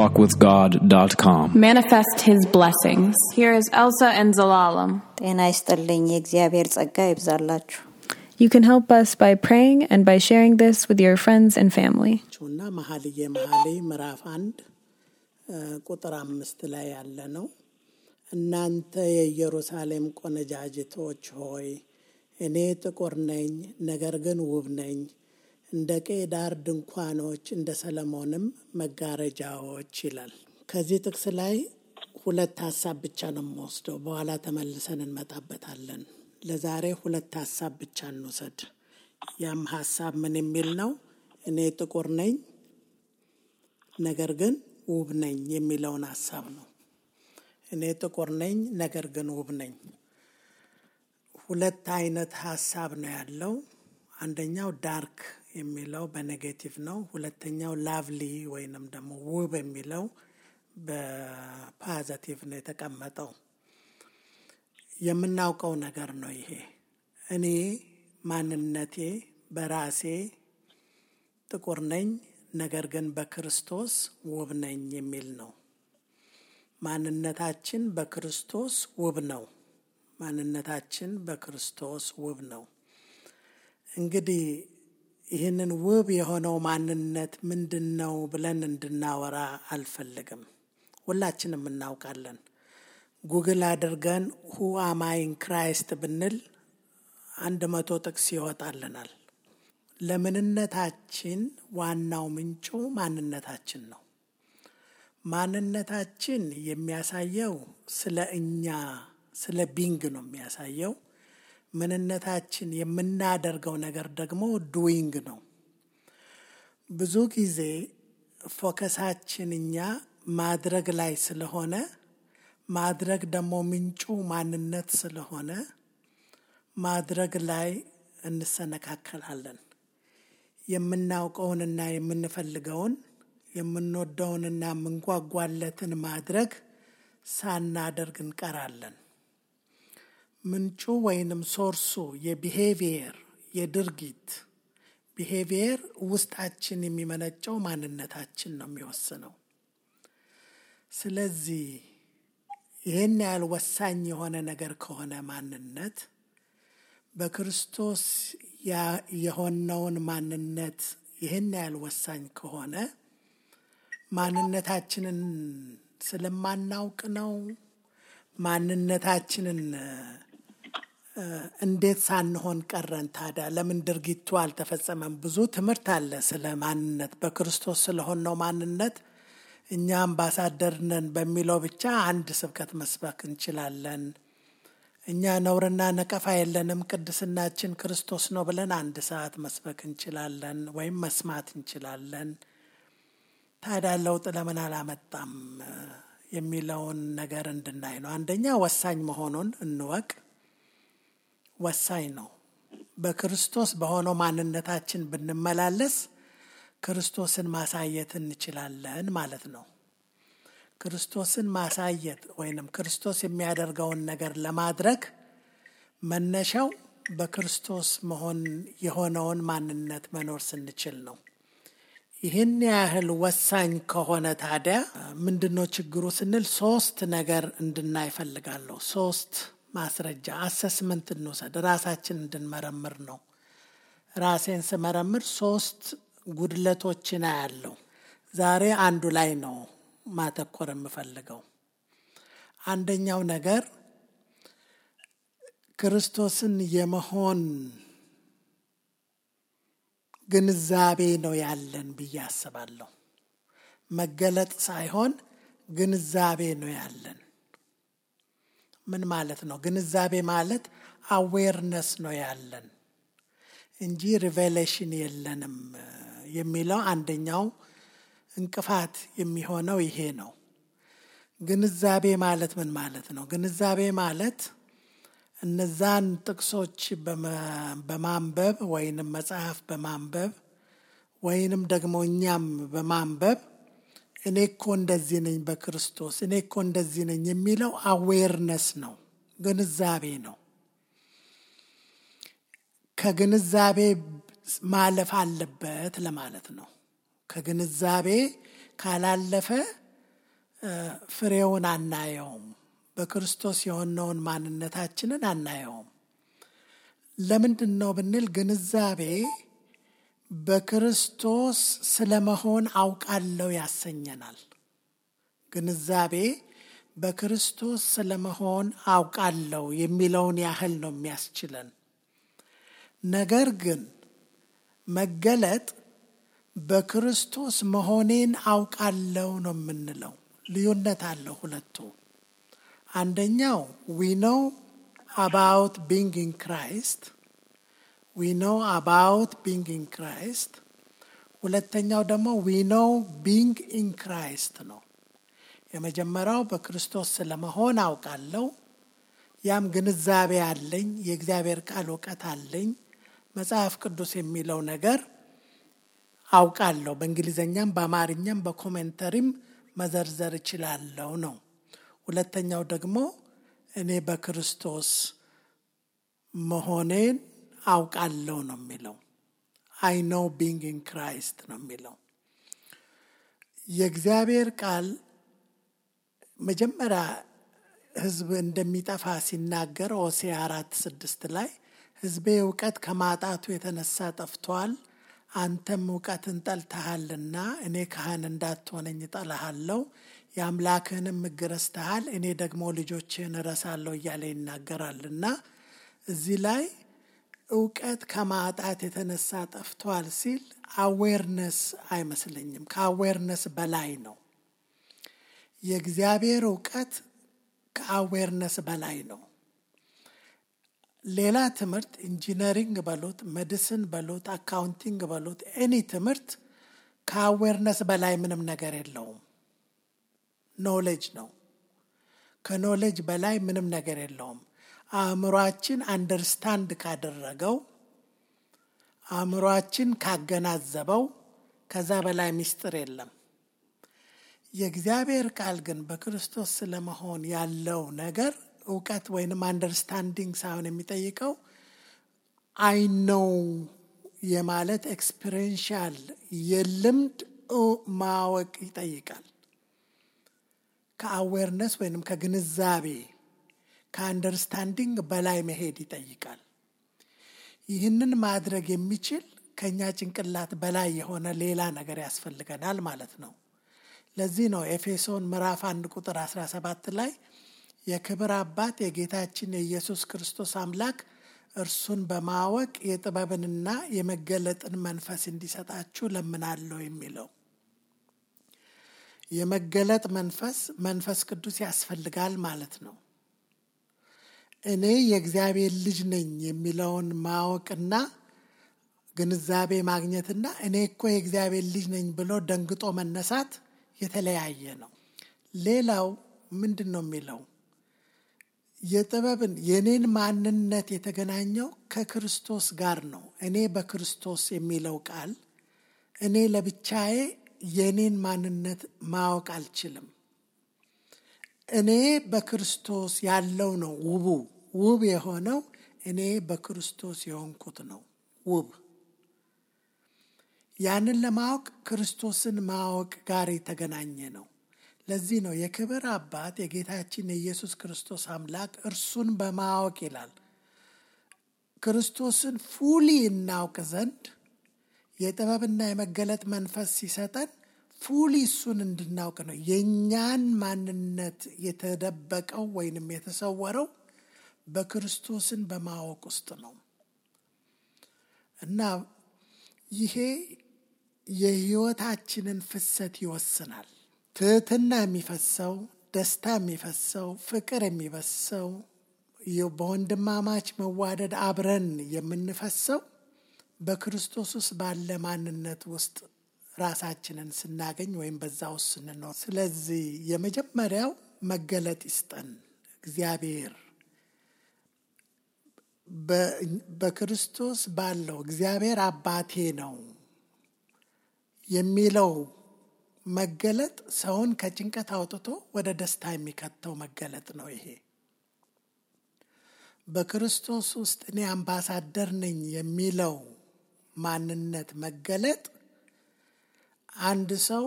letstalkwithgod.com. Manifest His blessings. Here is Elsa and Zalalam. ጤና ይስጥልኝ የእግዚአብሔር ጸጋ ይብዛላችሁ። You can help us by praying and by sharing this with your friends and family. ቹና መሐልየ ምዕራፍ 1 ቁጥር 5 ላይ ያለ ነው። እናንተ የኢየሩሳሌም ቆነጃጅቶች ሆይ እኔ ጥቁር ነኝ ነገር ግን ውብ ነኝ፣ እንደ ቄዳር ድንኳኖች እንደ ሰለሞንም መጋረጃዎች ይላል። ከዚህ ጥቅስ ላይ ሁለት ሐሳብ ብቻ ነው የምወስደው፣ በኋላ ተመልሰን እንመጣበታለን። ለዛሬ ሁለት ሐሳብ ብቻ እንውሰድ። ያም ሐሳብ ምን የሚል ነው? እኔ ጥቁር ነኝ ነገር ግን ውብ ነኝ የሚለውን ሐሳብ ነው። እኔ ጥቁር ነኝ ነገር ግን ውብ ነኝ። ሁለት አይነት ሐሳብ ነው ያለው። አንደኛው ዳርክ የሚለው በኔጌቲቭ ነው። ሁለተኛው ላቭሊ ወይንም ደግሞ ውብ የሚለው በፖዚቲቭ ነው የተቀመጠው። የምናውቀው ነገር ነው ይሄ። እኔ ማንነቴ በራሴ ጥቁር ነኝ ነገር ግን በክርስቶስ ውብ ነኝ የሚል ነው። ማንነታችን በክርስቶስ ውብ ነው። ማንነታችን በክርስቶስ ውብ ነው። እንግዲህ ይህንን ውብ የሆነው ማንነት ምንድነው ብለን እንድናወራ አልፈልግም። ሁላችንም እናውቃለን። ጉግል አድርገን who am I in Christ ብንል 100 ጥቅስ ይወጣልናል። ለምንነታችን ዋናው ምንጩ ማንነታችን ነው። ማንነታችን የሚያሳየው ስለ እኛ ስለ ቢንግ ነው የሚያሳየው። ምንነታችን የምናደርገው ነገር ደግሞ ዱዊንግ ነው። ብዙ ጊዜ ፎከሳችን እኛ ማድረግ ላይ ስለሆነ ማድረግ ደግሞ ምንጩ ማንነት ስለሆነ ማድረግ ላይ እንሰነካከላለን። የምናውቀውንና የምንፈልገውን የምንወደውንና የምንጓጓለትን ማድረግ ሳናደርግ እንቀራለን። ምንጩ ወይንም ሶርሱ የቢሄቪየር የድርጊት ቢሄቪየር ውስጣችን የሚመነጨው ማንነታችን ነው የሚወስነው። ስለዚህ ይህን ያህል ወሳኝ የሆነ ነገር ከሆነ ማንነት በክርስቶስ የሆነውን ማንነት ይህን ያህል ወሳኝ ከሆነ ማንነታችንን ስለማናውቅ ነው። ማንነታችንን እንዴት ሳንሆን ቀረን ታዲያ? ለምን ድርጊቱ አልተፈጸመም? ብዙ ትምህርት አለ ስለ ማንነት። በክርስቶስ ስለሆነው ማንነት እኛ አምባሳደር ነን በሚለው ብቻ አንድ ስብከት መስበክ እንችላለን። እኛ ነውርና ነቀፋ የለንም ቅድስናችን ክርስቶስ ነው ብለን 1 ሰዓት መስበክ እንችላለን ወይም መስማት እንችላለን። ታዲያ ለውጥ ለምን አላመጣም የሚለውን ነገር እንድናይ ነው። አንደኛ ወሳኝ መሆኑን እንወቅ። ወሳኝ ነው። በክርስቶስ በሆነው ማንነታችን ብንመላለስ ክርስቶስን ማሳየት እንችላለን ማለት ነው። ክርስቶስን ማሳየት ወይንም ክርስቶስ የሚያደርገውን ነገር ለማድረግ መነሻው በክርስቶስ መሆን የሆነውን ማንነት መኖር ስንችል ነው። ይህን ያህል ወሳኝ ከሆነ ታዲያ ምንድነው ችግሩ ስንል 3 ነገር እንድናይ ፈልጋለሁ። 3 ማስረጃ አሰስመንት እንውሰድ፣ ራሳችን እንድንመረምር ነው። ራሴን ስመረምር 3 ጉድለቶችን አያለሁ። ዛሬ አንዱ ላይ ነው ማተኮር የምፈልገው። አንደኛው ነገር ክርስቶስን የመሆን ግንዛቤ ነው ያለን ብዬ አስባለሁ። መገለጥ ሳይሆን ግንዛቤ ነው ያለን። ምን ማለት ነው? ግንዛቤ ማለት አዌርነስ ነው ያለን እንጂ ሪቬሌሽን የለንም የሚለው አንደኛው እንቅፋት የሚሆነው ይሄ ነው። ግንዛቤ ማለት ምን ማለት ነው? ግንዛቤ ማለት እነዛን ጥቅሶች በማንበብ ወይንም መጽሐፍ በማንበብ ወይንም ደግሞ እኛም በማንበብ እኔ እኮ እንደዚህ ነኝ በክርስቶስ እኔ እኮ እንደዚህ ነኝ የሚለው አዌርነስ ነው፣ ግንዛቤ ነው። ከግንዛቤ ማለፍ አለበት ለማለት ነው። ከግንዛቤ ካላለፈ ፍሬውን አናየውም። በክርስቶስ የሆነውን ማንነታችንን አናየውም። ለምንድን ነው ብንል ግንዛቤ በክርስቶስ ስለመሆን አውቃለሁ ያሰኘናል። ግንዛቤ በክርስቶስ ስለመሆን አውቃለሁ የሚለውን ያህል ነው የሚያስችለን። ነገር ግን መገለጥ በክርስቶስ መሆኔን አውቃለሁ ነው የምንለው። ልዩነት አለው ሁለቱ። አንደኛው we know about being in Christ. we know about being in Christ. ሁለተኛው ደግሞ we know being in Christ ነው። የመጀመሪያው በክርስቶስ ስለመሆን አውቃለሁ። ያም ግንዛቤ አለኝ፣ የእግዚአብሔር ቃል ዕውቀት አለኝ፣ መጽሐፍ ቅዱስ የሚለው ነገር አውቃለሁ። በእንግሊዘኛም በአማርኛም በኮሜንተሪም መዘርዘር እችላለሁ ነው። ሁለተኛው ደግሞ እኔ በክርስቶስ መሆኔን አውቃለሁ ነው የሚለው። I know being in Christ ነው የሚለው። የእግዚአብሔር ቃል መጀመሪያ ሕዝብ እንደሚጠፋ ሲናገር ሆሴዕ 4:6 ላይ ሕዝቤ ዕውቀት ከማጣቱ የተነሳ ጠፍቷል፣ አንተም ዕውቀትን ጠልተሃልና እኔ ካህን እንዳትሆነኝ እጠላሃለሁ፣ የአምላክህንም ሕግ ረስተሃል፣ እኔ ደግሞ ልጆችህን እረሳለሁ እያለ ይናገራልና እዚህ ላይ ዕውቀት ከማጣት የተነሳ ጠፍቷል ሲል አዌርነስ አይመስለኝም። ከአዌርነስ በላይ ነው። የእግዚአብሔር ዕውቀት ከአዌርነስ በላይ ነው። ሌላ ትምህርት ኢንጂነሪንግ በሉት፣ ሜዲሲን በሉት፣ አካውንቲንግ በሉት፣ ኤኒ ትምህርት ከአዌርነስ በላይ ምንም ነገር የለውም። ኖሌጅ ነው። ከኖሌጅ በላይ ምንም ነገር የለውም። አእምሯችን አንደርስታንድ ካደረገው፣ አእምሯችን ካገናዘበው ከዛ በላይ ምስጢር የለም። የእግዚአብሔር ቃል ግን በክርስቶስ ስለመሆን ያለው ነገር ዕውቀት ወይንም አንደርስታንዲንግ ሳይሆን የሚጠይቀው አይ ኖው የማለት ኤክስፒሪየንሻል የልምድ ማወቅ ይጠይቃል። ከአዌርነስ ወይንም ከግንዛቤ ከአንደርስታንዲንግ በላይ መሄድ ይጠይቃል። ይህንን ማድረግ የሚችል ከኛ ጭንቅላት በላይ የሆነ ሌላ ነገር ያስፈልገናል ማለት ነው። ለዚህ ነው ኤፌሶን ምዕራፍ 1:17 ላይ የክብር አባት የጌታችን የኢየሱስ ክርስቶስ አምላክ እርሱን በማወቅ የጥበብንና የመገለጥን መንፈስ እንዲሰጣችሁ ለምናለሁ የሚለው። የመገለጥ መንፈስ ቅዱስ ያስፈልጋል ማለት ነው። እኔ የእግዚአብሔር ልጅ ነኝ የሚለውን ማወቅና ግንዛቤ ማግኘትና እኔ እኮ የእግዚአብሔር ልጅ ነኝ ብሎ ደንግጦ መነሳት የተለያየ ነው። ሌላው ምንድን ነው የሚለው? የጥበብን የኔን ማንነት የተገናኘው ከክርስቶስ ጋር ነው። እኔ በክርስቶስ የሚለው ቃል እኔ ለብቻዬ የኔን ማንነት ማወቅ አልችልም። እኔ በክርስቶስ ያለው ነው ውብ የሆነው እኔ በክርስቶስ የሆንኩት ነው ውብ። ያንን ለማወቅ ክርስቶስን ማወቅ ጋር የተገናኘ ነው። ለዚህ ነው የክብር አባት የጌታችን የኢየሱስ ክርስቶስ አምላክ እርሱን በማወቅ ይላል። ክርስቶስን ፉሊ እናውቅ ዘንድ የጥበብና የመገለጥ መንፈስ ሲሰጠን ፉሊ እሱን እንድናውቅ ነው። የእኛን ማንነት የተደበቀው ወይንም የተሰወረው በክርስቶስን በማወቅ ውስጥ ነው እና ይሄ የሕይወታችንን ፍሰት ይወስናል። ትህትና የሚፈሰው፣ ደስታ የሚፈሰው፣ ፍቅር የሚፈሰው፣ በወንድማማች መዋደድ አብረን የምንፈሰው በክርስቶስ ውስጥ ባለ ማንነት ውስጥ ራሳችንን ስናገኝ ወይም በዛ ውስጥ ስንኖር። ስለዚህ የመጀመሪያው መገለጥ ይስጠን እግዚአብሔር። በክርስቶስ ባለው እግዚአብሔር አባቴ ነው የሚለው መገለጥ ሰውን ከጭንቀት አውጥቶ ወደ ደስታ የሚከተው መገለጥ ነው። ይሄ በክርስቶስ ውስጥ እኔ አምባሳደር ነኝ የሚለው ማንነት መገለጥ አንድ ሰው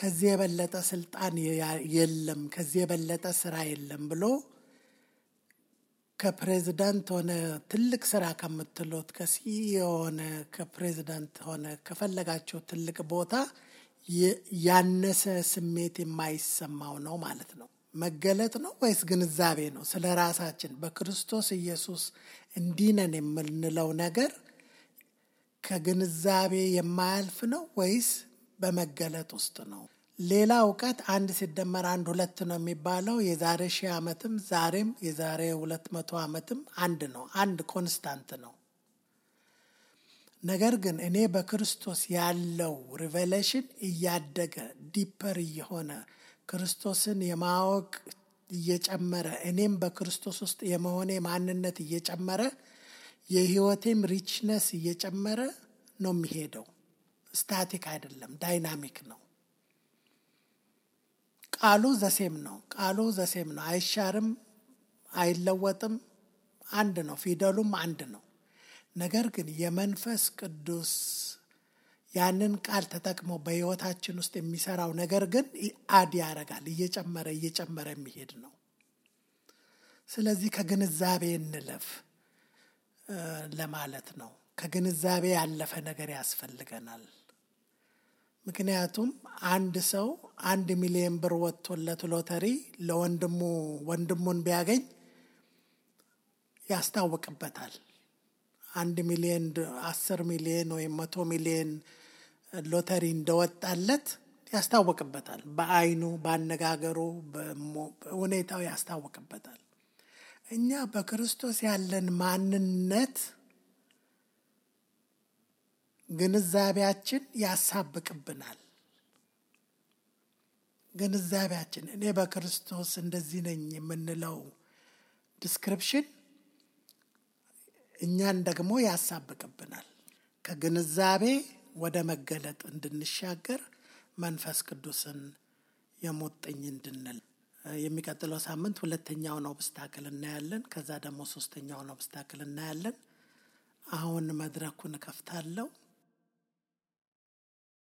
ከዚህ የበለጠ ስልጣን የለም፣ ከዚህ የበለጠ ስራ የለም ብሎ ከፕሬዝዳንት ሆነ ትልቅ ስራ ከምትሉት ከሲኢኦ ሆነ ከፕሬዝዳንት ሆነ ከፈለጋቸው ትልቅ ቦታ ያነሰ ስሜት የማይሰማው ነው ማለት ነው። መገለጥ ነው ወይስ ግንዛቤ ነው? ስለ ራሳችን በክርስቶስ ኢየሱስ እንዲህ ነን የምንለው ነገር ከግንዛቤ የማያልፍ ነው ወይስ በመገለጥ ውስጥ ነው? ሌላ እውቀት 1 ሲደመር 1 2 ነው የሚባለው የዛሬ 1000 ዓመትም ዛሬም የዛሬ 200 ዓመትም አንድ ነው። አንድ ኮንስታንት ነው። ነገር ግን እኔ በክርስቶስ ያለው ሪቨሌሽን እያደገ ዲፐር እየሆነ ክርስቶስን የማወቅ እየጨመረ እኔም በክርስቶስ ውስጥ የመሆኔ ማንነት እየጨመረ የህይወቴም ሪችነስ እየጨመረ ነው የሚሄደው። ስታቲክ አይደለም፣ ዳይናሚክ ነው። ቃሉ ዘሴም ነው። ቃሉ ዘሴም ነው። አይሻርም፣ አይለወጥም፣ አንድ ነው። ፊደሉም አንድ ነው። ነገር ግን የመንፈስ ቅዱስ ያንን ቃል ተጠቅሞ በህይወታችን ውስጥ የሚሰራው ነገር ግን አድ ያደርጋል፣ እየጨመረ እየጨመረ የሚሄድ ነው። ስለዚህ ከግንዛቤ እንለፍ ለማለት ነው። ከግንዛቤ ያለፈ ነገር ያስፈልገናል። ምክንያቱም አንድ ሰው 1 ሚሊዮን ብር ወጥቶለት ሎተሪ ወንድሙን ቢያገኝ ያስታውቅበታል። 1 ሚሊዮን 10 ሚሊዮን ወይም 100 ሚሊዮን ሎተሪ እንደወጣለት ያስታውቅበታል። በአይኑ፣ ባነጋገሩ፣ በሁኔታው ያስታውቅበታል። እኛ በክርስቶስ ያለን ማንነት ግንዛቤያችን ያሳብቅብናል። ግንዛቤያችን እኔ በክርስቶስ እንደዚህ ነኝ የምንለው ዲስክሪፕሽን እኛን ደግሞ ያሳብቅብናል። ከግንዛቤ ወደ መገለጥ እንድንሻገር መንፈስ ቅዱስን የሞጥኝ እንድንል የሚቀጥለው ሳምንት 2ኛውን ኦብስታክል እናያለን። ከዛ ደግሞ 3ኛውን ኦብስታክል እናያለን። አሁን መድረኩን ከፍታለሁ።